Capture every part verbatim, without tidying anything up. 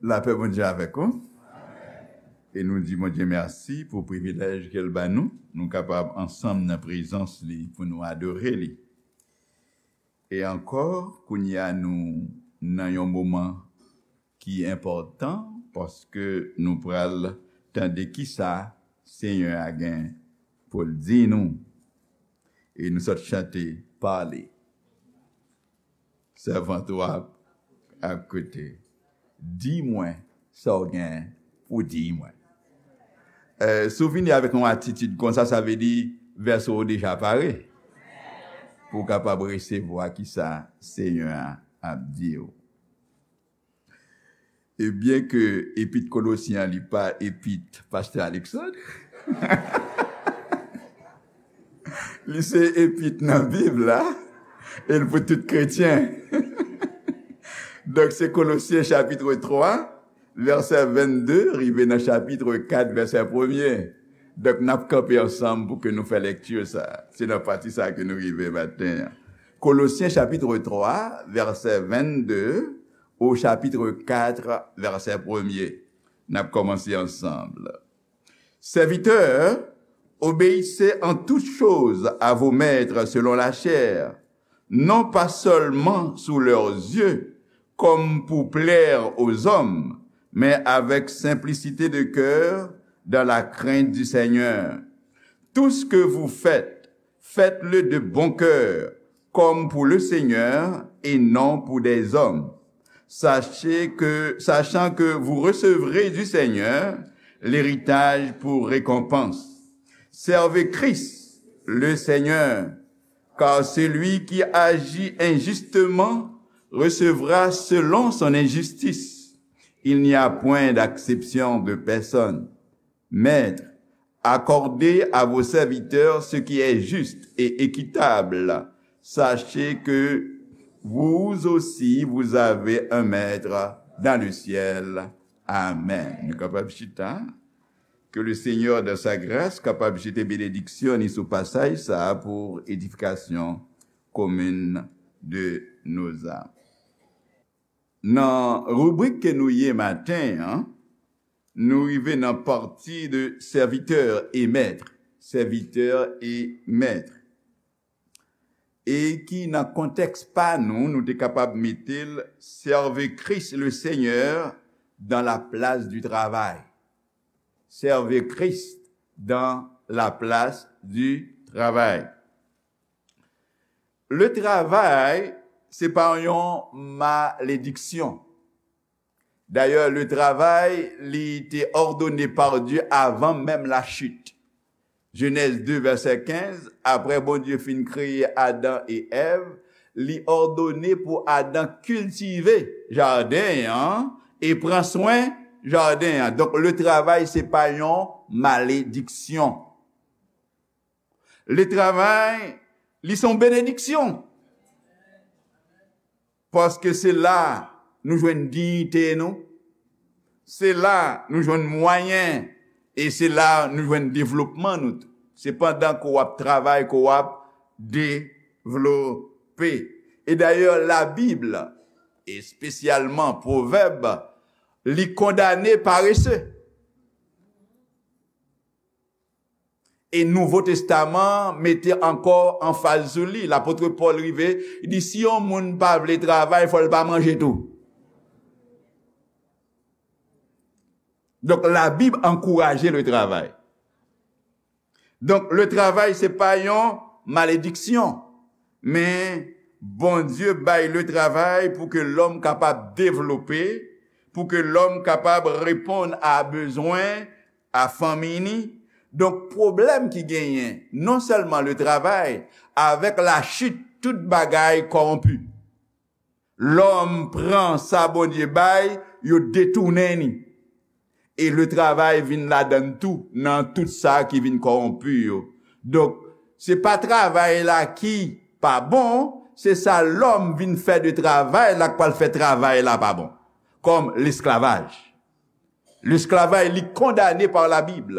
Lapè Bondye avèk ou. E nou di Bondye mèsi pou privilèj ke l ba nou. Nou kapab ansanm nan prezans li pou nou adore li. E ankò, kounye a nou nan yon moman ki enpòtan, paske nou pral tande kisa Senyè a gen pou l di nou. E nou sot chante, pale. Sèvant ou ap, ap koute. Di mwen sa w gen pou di mwen. Eh, si w vini avèk yon atitid konsa, sa vle di vèso w deja pare pou w kapab resevwa kisa Senyè a ap di w. E byen ke epit Kolosyen an, li pa epit Pastè Alexandre, li se epit nan Bib la, e l pou tout kretyen. Donk, se Kolosyen chapit twa, vèsè vennde, rive nan chapit kat, vèsè premye. Donk, n ap kanpe ansanm pou ke nou fè lekti sa. Se nan pati sa ke nou rive maten an. Kolosyen chapit twa, vèsè vennde, au chapitre quatre, verset premier. N ap kòmanse ansanm. Serviteurs, obéissez en toutes choses à vos maîtres selon la chair, non pas seulement sous leurs yeux, comme pour plaire aux hommes, mais avec simplicité de cœur, dans la crainte du Seigneur. Tout ce que vous faites, faites-le de bon cœur, comme pour le Seigneur et non pour des hommes. Sachez que, sachant que vous recevrez du Seigneur l'héritage pour récompense. Servez Christ, le Seigneur, car celui qui agit injustement recevra selon son injustice. Il n'y a point d'acception de personne. Maîtres, accordez à vos serviteurs ce qui est juste et équitable. Sachez que vous aussi, vous avez un maître dans le ciel. Amen. Nou kapab chita. Que le Seigneur, dans sa grâce, kapab jete benediksyon li sou pasaj sa a pou edifikasyon komin de nos âmes. Nan ribrik ke nou ye maten an, nou rive nan pati de serviteur et maître. Serviteur et maître. E ki nan kontèks pa nou, nou te kapab mete l, servez Christ le Seigneur dans la place du travail. Servez Christ dans la place du travail. Le travay, se pa yon malediksyon. Dayè, le travay, li te òdone pa Dye avan menm lachit. Jenèz de, vèsè kenz, apre Bondye fin kreye Adan e Èv, li òdone pou Adan kiltive jaden an e pran swen jaden an. Donk, le travay, se pa yon malediksyon. Le travay, li se yon benediksyon. Paske se la nou jwenn diyite nou. Se la nou jwenn mwayen. E se la nou jwenn devlopman nou tou. Se pandan ke w ap travay ke w ap devlope. E dayè, Labib, espesyalman Pwovèb, li kondane parese. E Nouvo Testaman mete ankò anfaz sou li. Lapot Pòl rive, li di, si yon moun pa vle travay, fò l pa manje tou. Donk, Labib ankouraje le travay. Donk, le travay, se pa yon malediksyon, men Bondye bay le travay pou ke lòm kapab devlope, pou ke lòm kapab reponn a bezwen a fanmi ni. Donk, pwoblèm ki genyen, non sèlman le travay, avèk lachit, tout bagay kòwonpi. Lòm pran sa Bondye bay, yo detounen ni. E le travay vin ladann tou, nan tout sa ki vin kòwonpi yo. Donk, se pa travay la ki pa bon, se sa lòm vin fè de travay la k pral fè travay la pa bon. Kòm lesklavaj. Lesklavaj, li kondane pa Labib.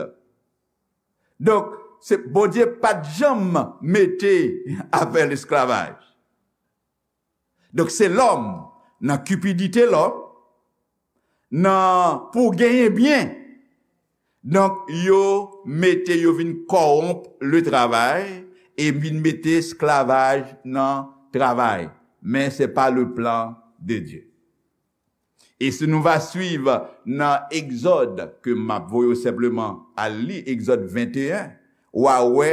Donk, se Bondye pa t janm mete afè lesklavaj. Donk, se lòm, nan kipidite lòm, nan pou genyen byen. Donk, yo mete, yo vin kòwonp le travay e vin mete esklavaj nan travay. Men se pa le plan de Dieu. E si nou va swiv nan Egzòd, ke m ap voye w senpleman al li, Egzòd venteyen, w a wè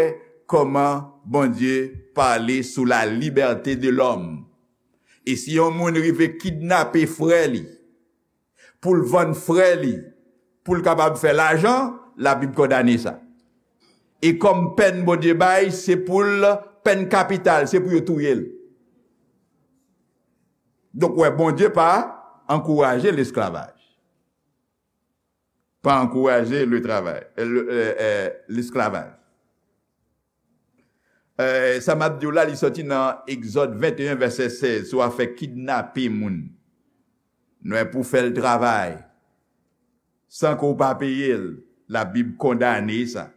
kòman Bondye pale sou la liberté de l'homme. E si yon moun rive kidnape frè li, pou l vann frè li, pou l kapab fè lajan, Labib kondane sa. E kòm pèn Bondye bay, se pou l, pèn kapital, se pou yo touye l. Donk, wè, Bondye pa ankouraje lesklavaj. Pa ankouraje le travay, eh, le, eh, eh, lesklavaj. Eh, sa m ap di w la, li sòti nan Egzòd venteyen, vèsè sèz, sou afè kidnape moun. Nou wè, pou fè l travay, san ke w pa peye l, Labib kondane sa.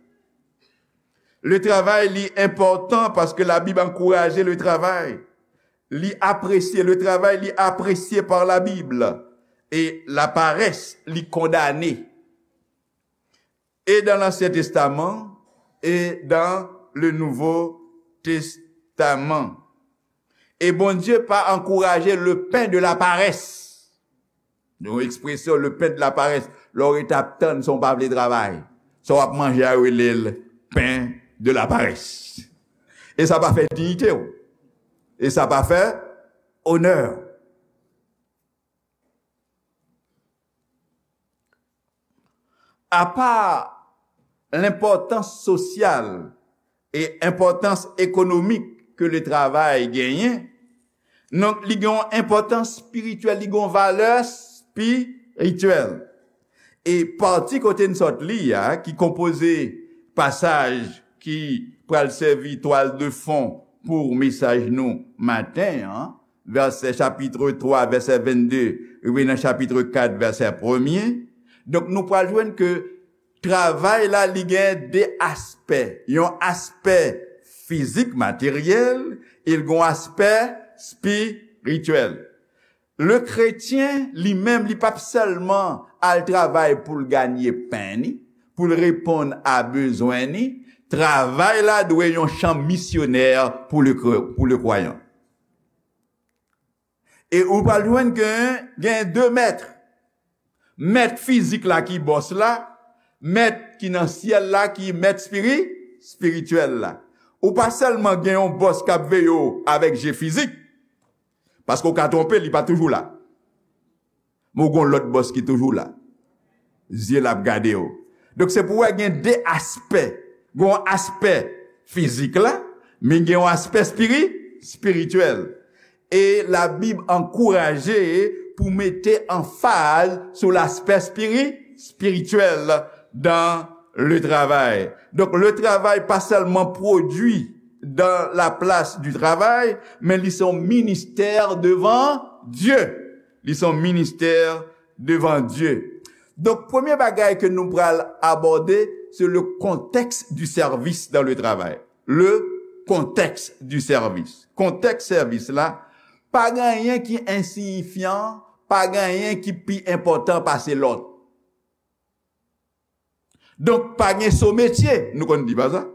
Le travay, li enpòtan paske Labib ankouraje le travay. Li apresye, le travay, li apresye par la Bible. E la paresse, li kondane. Et dans l'Ancien Testament et dans le Nouveau Testament. E Bondye pa ankouraje le pain de la paresse. Yon ekspresyon, le pain de la paresse. Lè w ret ap tann, san w pa vle travay. Sa w ap manje a, yo rele l pain de la paresse. E sa pa fè diyite w. E sa pa fè onè w. Apa lenpòtans sosyal e enpòtans ekonomik ke le travay genyen, donk, li gen yon enpòtans espirityèl, li gen yon valè espirityèl. E pati kote n sot li a, ki konpoze pasaj ki pral sèvi twal de fon pou mesaj nou maten an, vèsè chapit twa, vèsè vennde, rive nan chapit kat, vèsè premye. Donk, nou pral jwenn ke travay la, li gen de aspè. Yon aspè fizik, materyèl, e l gen yon aspè espirityèl. Le kretyen, li menm, li p ap sèlman al travay pou l ganye pen ni, pou l reponn a bezwen ni. Travay la dwe yon chan misyonè pou le kre-, pou le kwayan. E ou pral jwenn ke gen de mèt. Mèt fizik la ki bòs la, mèt ki nan syèl la ki mèt espiri-, espirityèl la. Ou pa sèlman gen yon bòs k ap veye w avèk je fizik, paske w ka twonpe, li pa toujou la. Men w gen yon lòt bòs ki toujou la. Zye l ap gade w. Donk, se pou w wè gen de aspè. Gen yon aspè fizik la, men gen yon aspè espiri-, espirityèl. E Labib ankouraje pou mete anfaz sou laspè espiri-, espirityèl dans le travail. Donk, le travay pa sèlman pwodui dans la place du travail, men li se yon ministè devan Dye. Li se yon ministè devan Dye. Donk, premye bagay ke nou pral abòde, se le contexte du service dans le travail. Le contexte du service. Kontèks sèvis la, pa gen anyen ki ensiyifyan, pa gen anyen ki pi enpòtan pase lòt. Donk, pa gen so metye, nou konn di pa sa?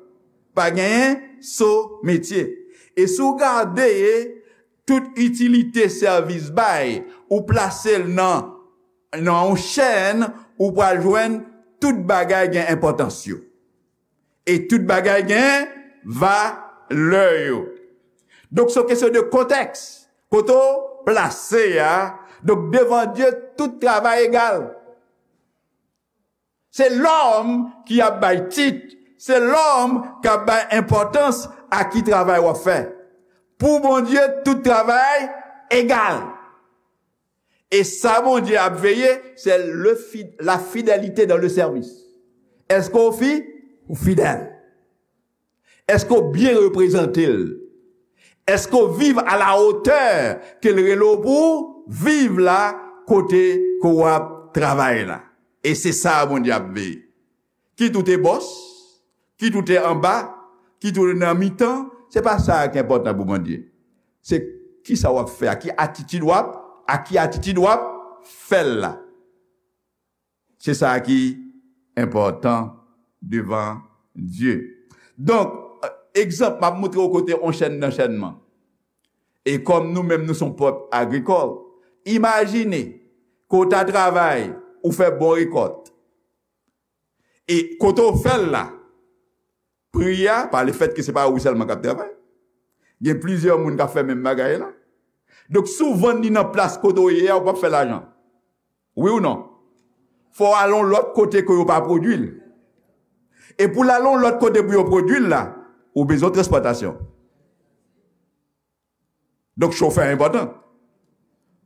Pa genyen so metye. E si w gade tout itilite sèvis bay, ou plase l nan, nan yon chèn, ou pral jwenn tout bagay gen enpòtans yo. E tout bagay gen valè yo. Donk, se yon kesyon de kontèks. Kote w plase a, donk, devan Dye, tout travay egal. Se lòm ki ap bay tit, se lòm k ap bay enpòtans a ki travay w ap fè. Pou Bondye, tout travay egal. E sa Bondye ap veye, se le fi-, la fidélité dans le service. Èske w fi-, ou fidèl? Èske w byen reprezante l? Èske w viv à la hauteur ke l rele w pou w viv la kote ke w ap travay la? E se sa Bondye ap veye. Kit ou te bòs, kit ou te anba, kit ou te nan mitan, se pa sa ki enpòtan pou Bondye. Se kisa w ap fè, a ki atitid w ap, a ki atitid w ap fè l la. Se sa ki enpòtan devan Dye. Donk, egzanp, m ap montre w kote yon chèn nan chènman. E kòm nou menm nou se yon pèp agrikòl, imajine ke w ta travay, ou fè bon rekòt. E kote w fè l la, pri a, pa lefètke se pa ou sèlman k ap travay, gen plizyè moun k ap fè menm bagay la. Donk, si w vann li nan plas kote w ye a, ou p ap fè lajan. Wi ou non? Fò w al yon lòt kote ke yo pa pwodui l. E pou l al yon lòt kote pou yo pwodui l la, ou bezwen transpòtasyon. Donk, chofè enpòtan.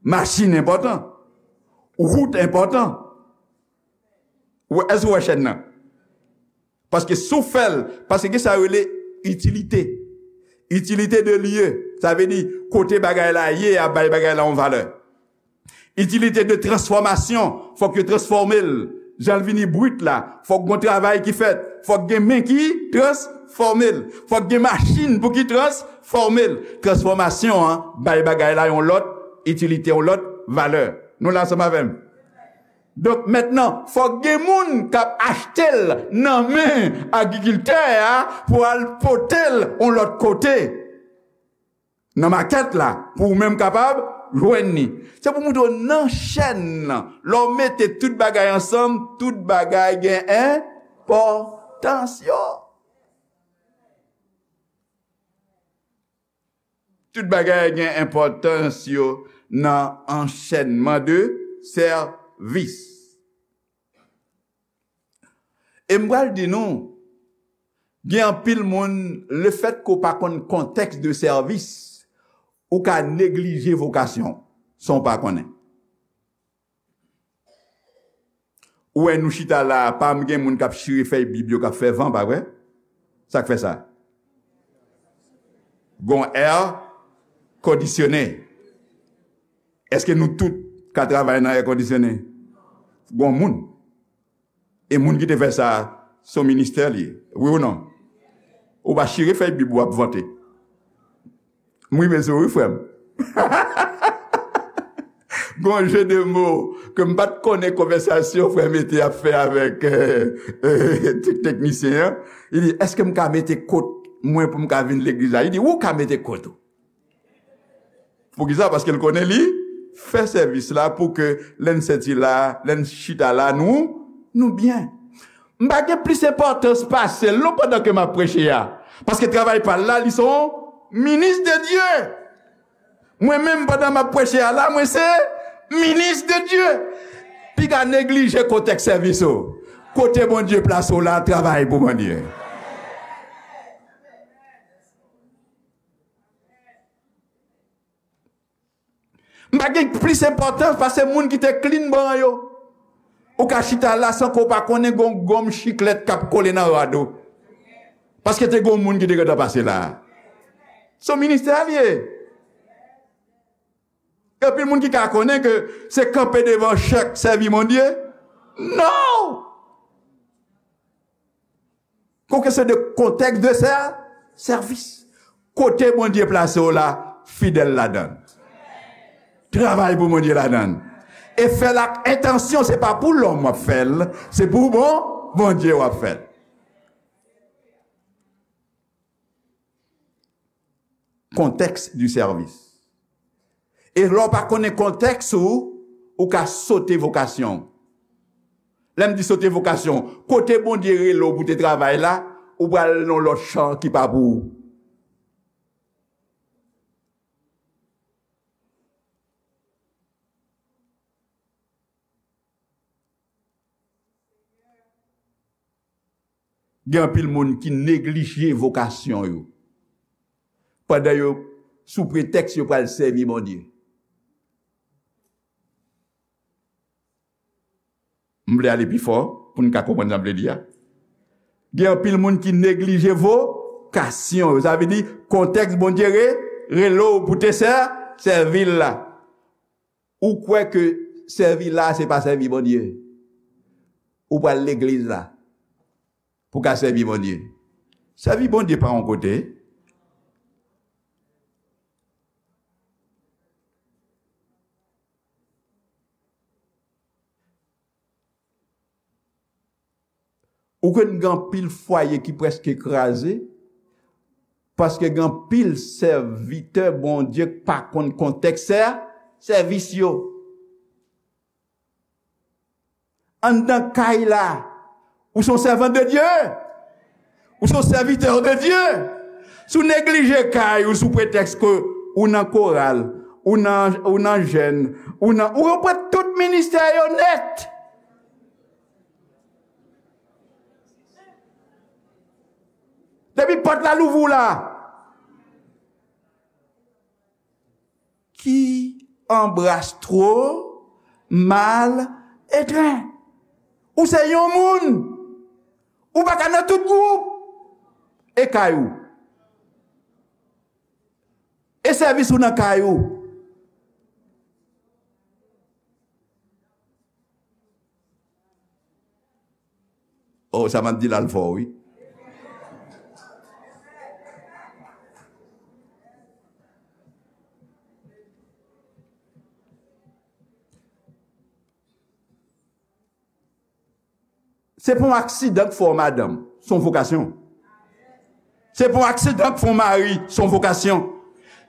Machin enpòtan. Wout enpòtan. Ou, èske w wè chèn nan? Paske si w fè l, paske gen sa yo rele itilite. Itilite de lye, sa vle di kote bagay la ye a bay bagay la yon valè. Itilite de transfòmasyon, fòk yo transfòme l. Jan l vini brit la, fòk gon travay ki fèt, fòk gen men ki transfòme l, fòk gen machin pou ki transfòme l. Transfòmasyon an bay bagay la yon lòt itilite, yon lòt valè. Nou la ansanm avè m? Donk, mentnan, fòk gen moun k ap achte l nan men agrikiltè a pou al pote l yon lòt kote, nan makèt la, pou ou menm kapab jwenn li. Se pou montre w nan chèn nan, lè w mete tout bagay ansanm, tout bagay gen enpòtans yo. Tout bagay gen enpòtans yo nan anchènman de sèvis. E m pral di nou, gen anpil moun, lefètke w pa konn kontèks de sèvis, ou ka neglije vokasyon w san w pa konnen. Ou wè nou chita la a, pa m gen moun k ap chire fèy Bib yo k ap fè van, pa vre? Sa k fè sa? Gon air conditionné. Èske nou tout ka travay nan air conditionné? Gon moun. E moun ki te fè sa, se yon ministè li ye. Wi ou non? Ou pa chire fèy Bib ou ap vante. M rive sou ou wi, frè m. Gon jeu de mots ke m pa t konnen konvèsasyon frè Mete ap fè avèk, euh, euh, tek-, teknisyen an. Li di, èske m ka mete kot mwen pou m ka vin legliz la? Li di, ou ka mete kot ou. Poukisa? Paske l konnen li fè sèvis la pou ke lè n sèti la, lè n chita la, nou, nou byen. M pa gen plis enpòtans pase l non pandan ke m ap preche a. Paske travay pa l la, li se yon minis de Dye. Mwen menm, pandan m ap preche a la, mwen se minis de Dye. Piga neglije kontèks sèvis ou. Kote Bondye plase w la, travay pou Bondye. M pa gen plis enpòtans pase moun ki te klin ban yo. Ou ka chita la san ke w pa konnen gon gonm chiklèt k ap kole nan rad ou. Paske te gon moun ki te gentan pase la. Se yon ministè a l ye. Gen anpil moun ki ka konnen ke se kanpe devan chèk sèvi Bondye. Non! Gon kesyon de kontèks de sè-, sèvis. Kote Bondye plase w la, fidèl ladan l. Travay pou Bondye ladan l. E fè l ak entansyon, se pa pou lòm w ap fè l, se pou bon, Bondye w ap fè l. Kontèks du sèvis. E lè w pa konnen kontèks ou, ou ka sote vokasyon w. Lè m di sote vokasyon, kote Bondye rele w pou te travay la, ou pral nan lòt chan ki pa pou ou. Gen anpil moun ki neglije vokasyon yo. Pandan yo, sou pretèks yo pral sèvi Bondye. M vle ale pi fò pou n ka konprann sa m vle di a. Gen anpil moun ki neglije vokasyon yo. Sa vle di, kontèks Bondye re-, rele w pou te sè-, sèvi l la. Ou kwè ke sèvi la, se pa sèvi Bondye? Ou pral legliz la pou ka sèvi Bondye. Sèvi Bondye pa yon kote. Ou konn gen anpil fwaye ki prèske kraze, paske gen anpil sèvitè Bondye k pa konn kontèks sè-, sèvis yo. Anndan kay la, ou se yon sèvant de Dye. Ou se yon sèvitè de Dye. Si w neglije kay ou sou pretèks ke ou nan koral, ou nan, ou nan jèn, ou nan, ou pran tout ministè yo nèt. Depi pòt la louvri w la, qui embrasse trop mal étreint. Ou se yon moun. Ou pa ka nan tout gwoup. E kay ou. E sèvis ou nan kay ou. Oh, sa m ap di la l fò, wi. Se pa yon aksidan k fè w madanm, se yon vokasyon. Se pa yon aksidan k fè w mari, se yon vokasyon.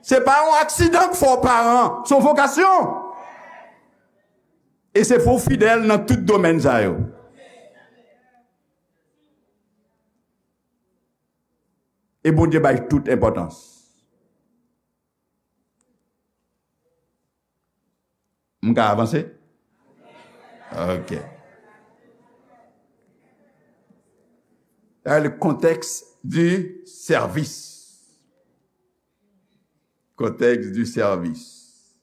Se pa yon aksidan k fè w paran, se yon vokasyon. E se pou w fidèl nan tout domèn sa yo. E Bondye bay tout enpòtans. M ka avanse? Ok. Dans le contexte du service. Contexte du service.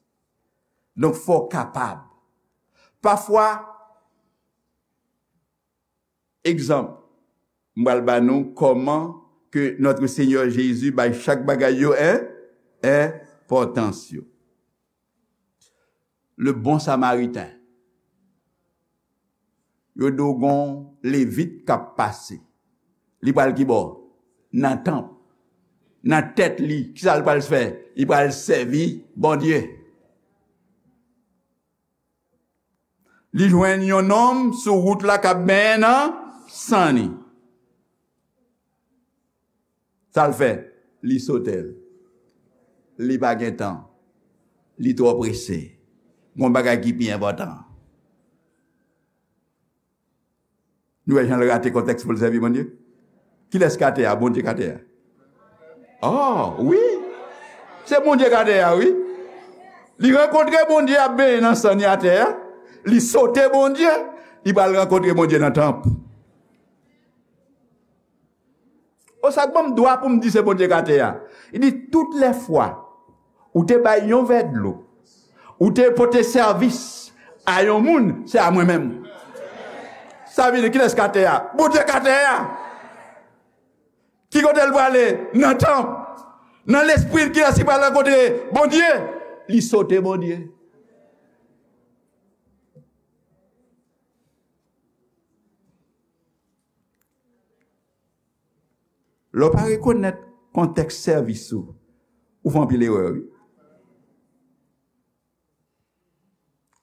Donk, fò w kapab. Pafwa, egzanp, m pral ba nou kòman ke Notre Seigneur Jésus bay chak bagay yo en, enpòtans yo. Le bon Samaritain. Yo di w gon Levit k ap pase. Li pral ki bò? Nan tanp. Nan tèt li, kisa l pral fè? Li pral sèvi Bondye. Li jwenn yon nonm sou wout la k ap benyen nan san li. Sa l fè? Li sote l. Li pa gen tan. Li twò prese. Gon bagay ki pi enpòtan. Nou wè jan l rate kontèks pou l sèvi Bondye? Kilès k atè a? Bondye k atè a. Oh, wi. Se Bondye k atè a, wi. Li rankontre Bondye ap benyen nan san li atè a. Li sote Bondye. Li pral rankontre Bondye nan tanp. O, sa k ban m dwa pou m di se Bondye k atè a. Li di, tout lè fwa ou te bay yon vè dlo, ou te pote sèvis a yon moun, se a mwen menm. Sa vle di, kilès k atè a? Bondye k atè a. Ki kote l prale? Nan tanp. Nan lespri l, kilès ki pral rankontre Bondye? Li sote Bondye. Lè w pa rekonèt kontèks sèvis ou, ou fè anpil erè, wi.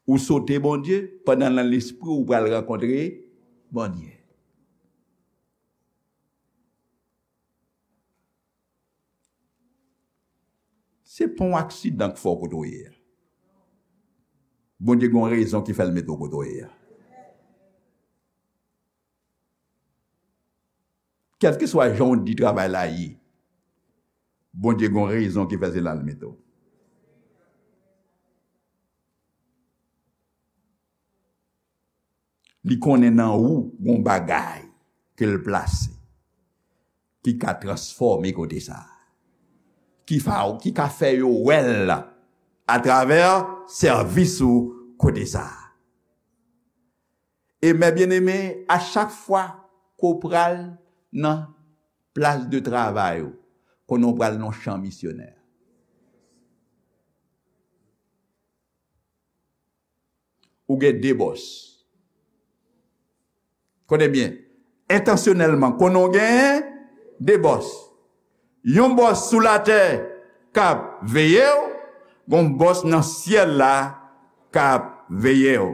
Ou sote Bondye, pandan nan lespri w ou pral rankontre Bondye. Se pa yon aksidan k fè w kote w ye a. Bondye gen yon rezon ki fè l mete w kote w ye a. Kèlkeswa jan w di travay la ye, Bondye gen yon rezon ki fè se la l mete w. Li konnen nan ou gon bagay ke l plase ki ka transfòme kote sa a, ki fa, ki ka fè yo wè l atravè sèvis ou kote sa a. E mè byeneme, a chak fwa ke w pral nan plas de travay ou, konnen w pral nan yon chan misyonè. Ou gen de bòs. Konnen byen, entansyonèlman, konnen w gen de bòs. Yon bòs sou latè k ap veye w, gon bòs nan syèl la k ap veye w.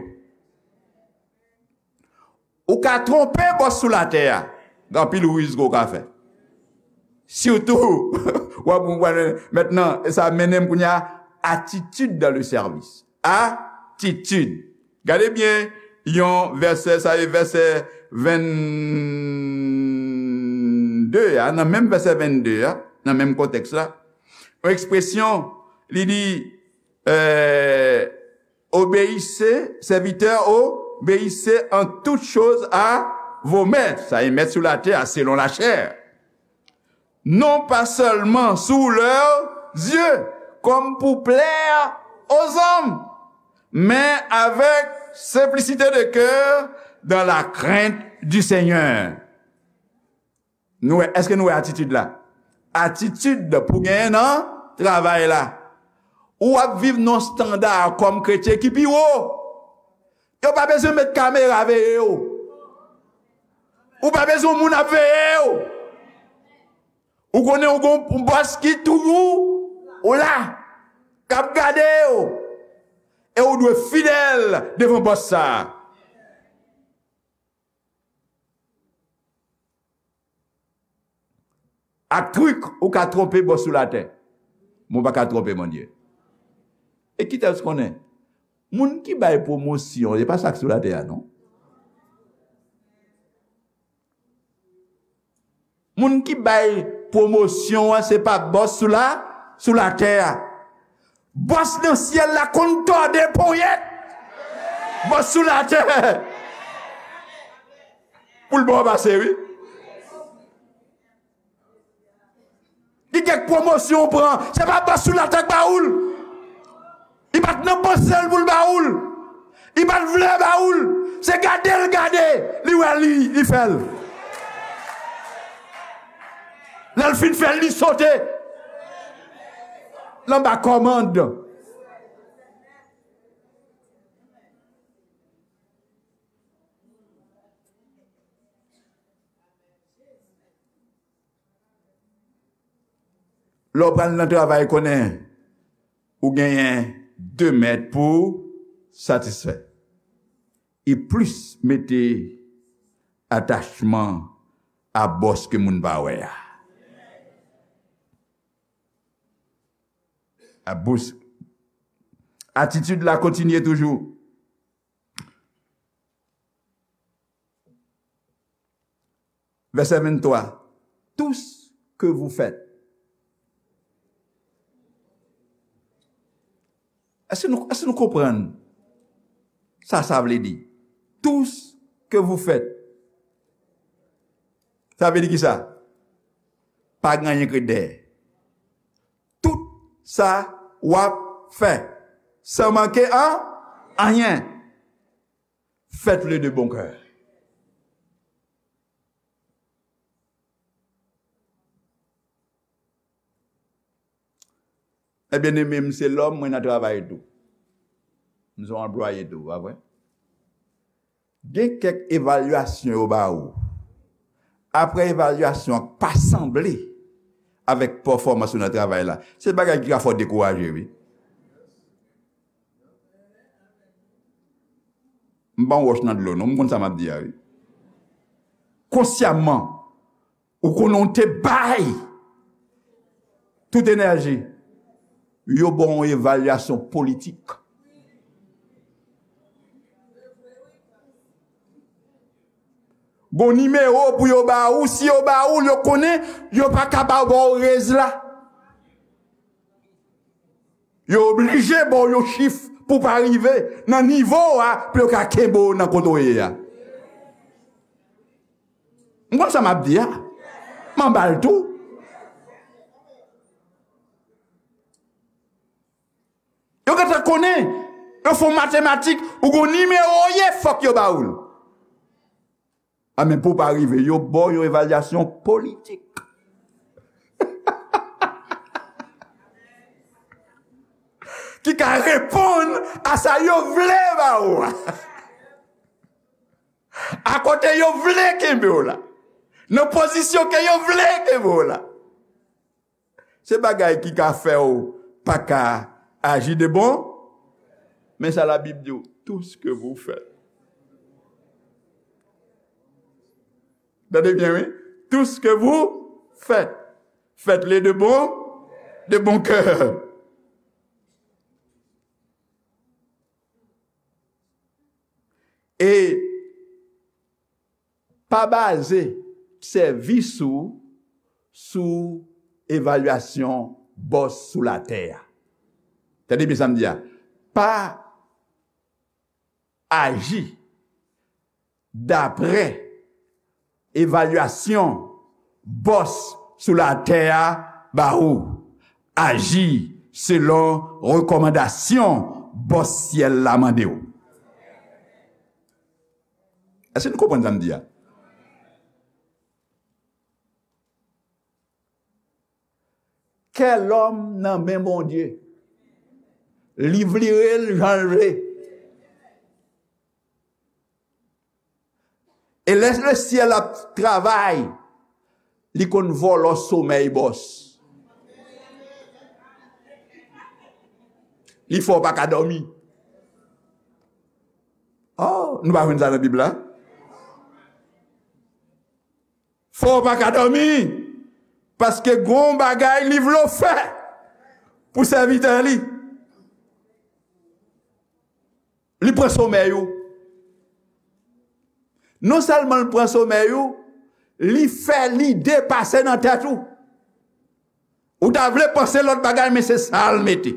Ou ka twonpe bòs sou latè a. Gen anpil riz ke w ka fè. Sitou, w ap, w ap, mentnan, e sa mennen m kounye a, attitude dans le service. Attitude. Gade byen, yon vèsè, sa e vèsè vennde a, nan menm vèsè vennde a, nan menm kontèks la, yon ekspresyon, li di, euh, obéissez, serviteurs, obéissez en toutes choses à vos maîtres. Sa e mèt sou latè a, selon la chair. Non pas seulement sous leurs yeux, comme pour plaire aux hommes, mais avec simplicité de cœur, dans la crainte du Seigneur. Nou wè, èske nou wè atitid la? Atitid pou genyen nan travay la. Ou ap viv nan yon estanda kòm kretyen ki pi wo. Yo pa bezwen met kamera veye w. Ou pa bezwen moun ap veye w. Ou konnen ou gon yon bòs ki toujou ou la, k ap gade w. E ou dwe fidèl devan bòs sa a. Ak trik, ou ka twonpe bòs sou latè. Men w pa ka twonpe Bondye. E kite w konnen, moun ki bay pwomosyon, se pa sa k sou latè a, non. Moun ki bay pwomosyon an, se pa bòs sou la, sou latè a. Bòs nan syèl la konn tòde ponyèt bòs sou latè pou l ba w pase, wi. Gen kèk pwomosyon w pran, se pa bòs sou latè k ba ou l. Li pa t nan panse l pou l ba ou l. Li pa t vle ba ou l. Se gade l gade, li wè li, li fè l. Lè l fin fè l, li sote l anba kòmand. Lè w pral nan travay, konnen ou genyen de mèt pou satisfè. E plis mete atachman a bòs ke moun pa wè a. A bòs. Atitid la kontinye toujou. Vèsè venntwa. Tout ce que vous faites. Èske nou, èske nou konprann sa sa vle di? Tout ce que vous faites. Sa vle di kisa? Pa gen anyen k ret dèyè. Tout sa w ap fè, san manke an anyen, faites-le de bon cœur. Ebyen, men m se lòm, mwen nan travay tou. M se yon anplwaye tou, pa vre? Gen kèk evalyasyon yo ba ou. Apre evalyasyon an pa sanble avèk pèfòmans ou nan travay la, se bagay ki ka fè w dekouraje, wi. M pa yon wòch nan dlo, non, m konn sa m ap di a, wi. Konsyaman, ou konnen w te bay tout enèji, yo ba w yon evalyasyon politik. Gon nimewo pou yo ba ou, si yo ba ou l, yo konnen yo pa ka ba w rez la. Yo oblije ba w yon chif pou w pa rive nan nivo a, pou yo ka kenbe w nan kote w ye a. M konn sa m ap di a. M anba l tou. Yo gentan konnen, yo fè w matematik, ou gon nimewo w ye, fòk yo ba ou l. A, men pou w pa rive, yo ba w yon evalyasyon politik ki ka reponn a sa yo vle ba ou a. A kote yo vle kenbe w la. Nan pozisyon ke yo vle kenbe w la. Se bagay ki ka fè w pa ka aji de bon. Men sa Labib di w, tout ce que vous faites. Tande byen, wi. Tout ce que vous faites, faites-le de bon, de bon cœur. E pa baze sèvis ou sou evalyasyon bòs sou latè a. Tande byen sa m di a. Pa aji daprè evalyasyon bòs sou latè a ba ou. Aji selon rekòmandasyon bòs syèl la mande w. Èske nou konprann sa m di a? Kè lòm nan men Bondye. Li vire l jan l vle. E lè lesyèl ap travay, li konn vòlò somèy bòs. Li fè w pa ka dòmi. Oh, nou pa jwenn sa nan Bib la? Fè w pa ka dòmi, paske gon bagay li vle w fè pou sèvitè li. Li pran somèy ou. Non sèlman l pran somèy ou, li fè lide pase nan tèt ou. Ou ta vle panse lòt bagay, men se sa l mete.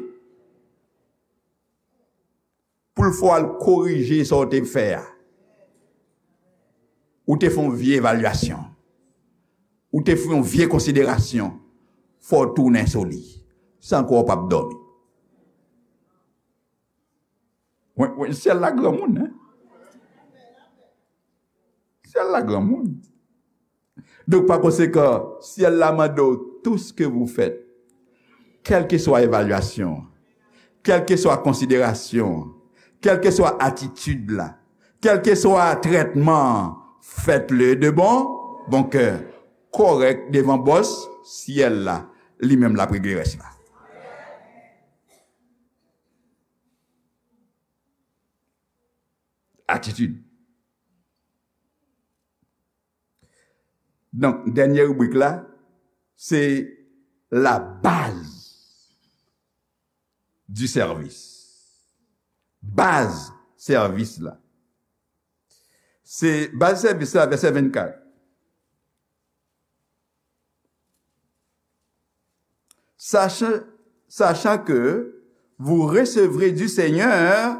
Pou l fè w al korije sa w te fè a. Ou te fè yon vye evalyasyon. Ou te fè yon vye konsiderasyon. Fò w tounen sou li. San kwa w p ap dòmi. Wi, wi, syèl la granmoun, hein? Syèl la granmoun. Donk, pa konsekan, syèl la mande w, tout ce que vous faites, kèlkeswa evalyasyon, kèlkeswa konsiderasyon, kèlkeswa atitid la, kèlkeswa trètman an, faites-le de bon, bon cœur, kòrèk devan bòs syèl la, li menm l ap regle rès la. Atitid. Donk, dènye ribrik la, se la base du service. Baz sèvis la. Se baz sèvis la, vèsè vennkat. Sachant, sachant que vous recevrez du Seigneur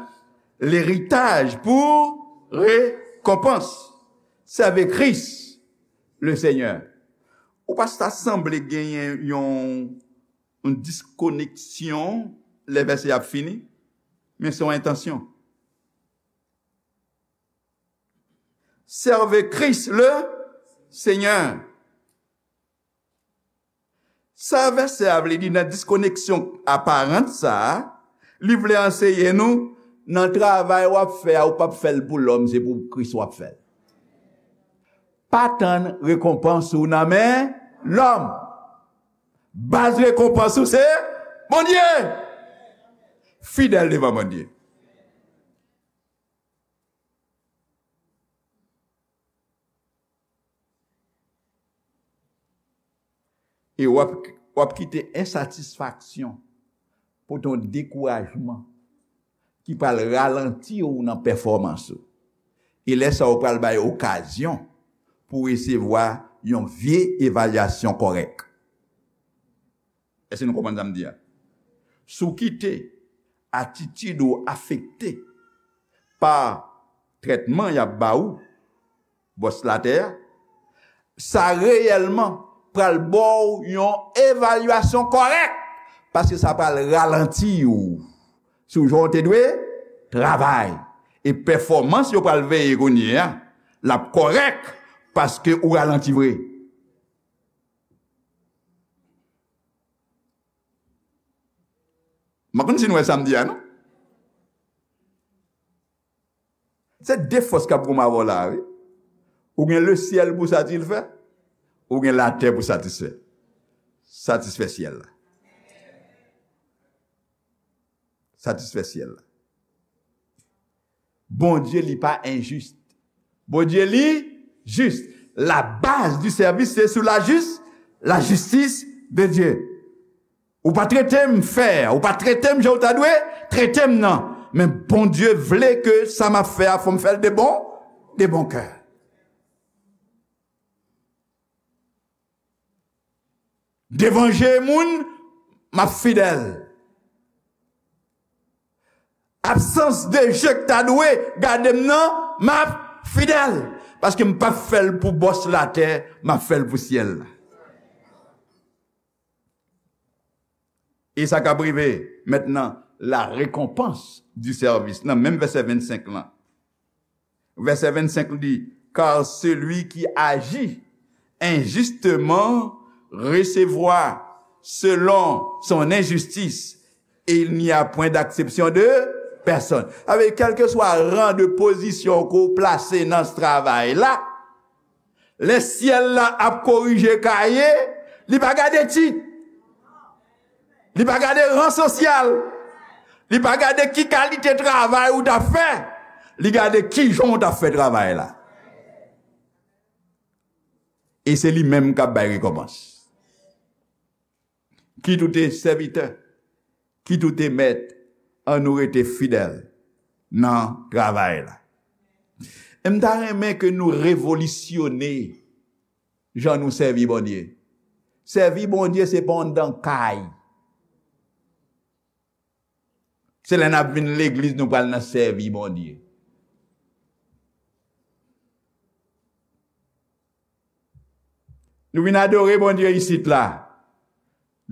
l'héritage pour récompense. Sèvi Kris, le Seigneur. Ou pa ta sanble genyen yon, yon diskoneksyon lè vèsè ap fini, men se yon entansyon. Servez Christ le Seigneur. Sa vèsè a vle di nan diskoneksyon aparan sa a, li vle anseye nou, nan travay w ap fè a, ou p ap fè l pou lòm, se pou Kris w ap fè l. Pa tann rekonpans ou nan men lòm. Baz rekonpans ou se Bondye. Fidèl devan Bondye. E w ap, w ap kite ensatisfaksyon, pote yon dekourajman ki pral ralanti w nan pèfòmans ou. E lè sa a, ou pral bay okazyon pou w resevwa yon vye evalyasyon kòrèk. Èske nou konprann sa m di a? Si w kite atitid ou afekte pa trètman y ap ba ou, bòs latè a, sa reyèlman pral ba w yon evalyasyon kòrèk, paske sa pral ralanti w sou jan w te dwe travay. E pèfòmans yo pral veye kounye a, l ap kòrèk paske ou ralanti vre. M pa konn si nou wè sa m di a, non? Se de fòs k ap goumen avè w la, wi. Ou gen lesyèl pou satisfè, ou gen latè pou satisfè. Satisfè syèl la. Satisfè syèl la. Bondye li pa enjis. Bondye li jis. La base du service, c'est sur la jus-, la justice de Dieu. Ou pa trete m fè, ou pa trete m jan w ta dwe trete m nan. Men Bondye vle ke sa m ap fè a, fò m fè l de bon, de bon kè. Devan je moun, m ap fidèl. Absans de je k ta dwe gade m nan, m ap fidèl. Paske m p ap fè l pou bòs latè, m ap fè l pou syèl la. E sa k ap rive mentnan, la récompense du service. Nan menm vèsè vennsenk lan. Vèsè vennsenk li di, car celui qui agit injustement recevra selon son injustice, et il n'y a point d'acception de personne. Sa vle di, kèlkeswa ran de pozisyon ke w plase nan travay la, lè syèl la ap korije kaye, li pa gade tit. Li pa gade ran sosyal. Li pa gade ki kalite travay ou t ap fè. Li gade kijan w t ap fè travay la. E se li menm k ap bay rekonpans. Kit ou te sèvitè, kit ou te mèt, ann nou rete fidèl nan travay la. E m ta renmen ke nou revolisyone jan nou sèvi Bondye. Sèvi Bondye se pa anndan kay. Se lè n ap vin legliz nou pral nan sèvi Bondye. Nou vin adore Bondye isit la.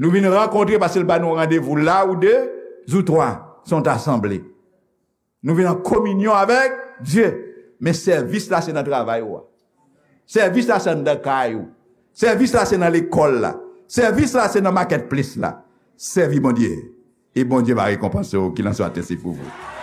Nou vin rankontre paske l ba nou randevou la ou de ou twa se yon asanble. Nou vin an kominyon avèk Dye. Men sèvis la se nan travay ou a. Sèvis la se anndan kay ou. Sèvis la se nan lekòl la. Sèvis la se nan marketplace la. Sèvi Bondye. E Bondye va rekonpanse w. Kilanswa, se pou vou.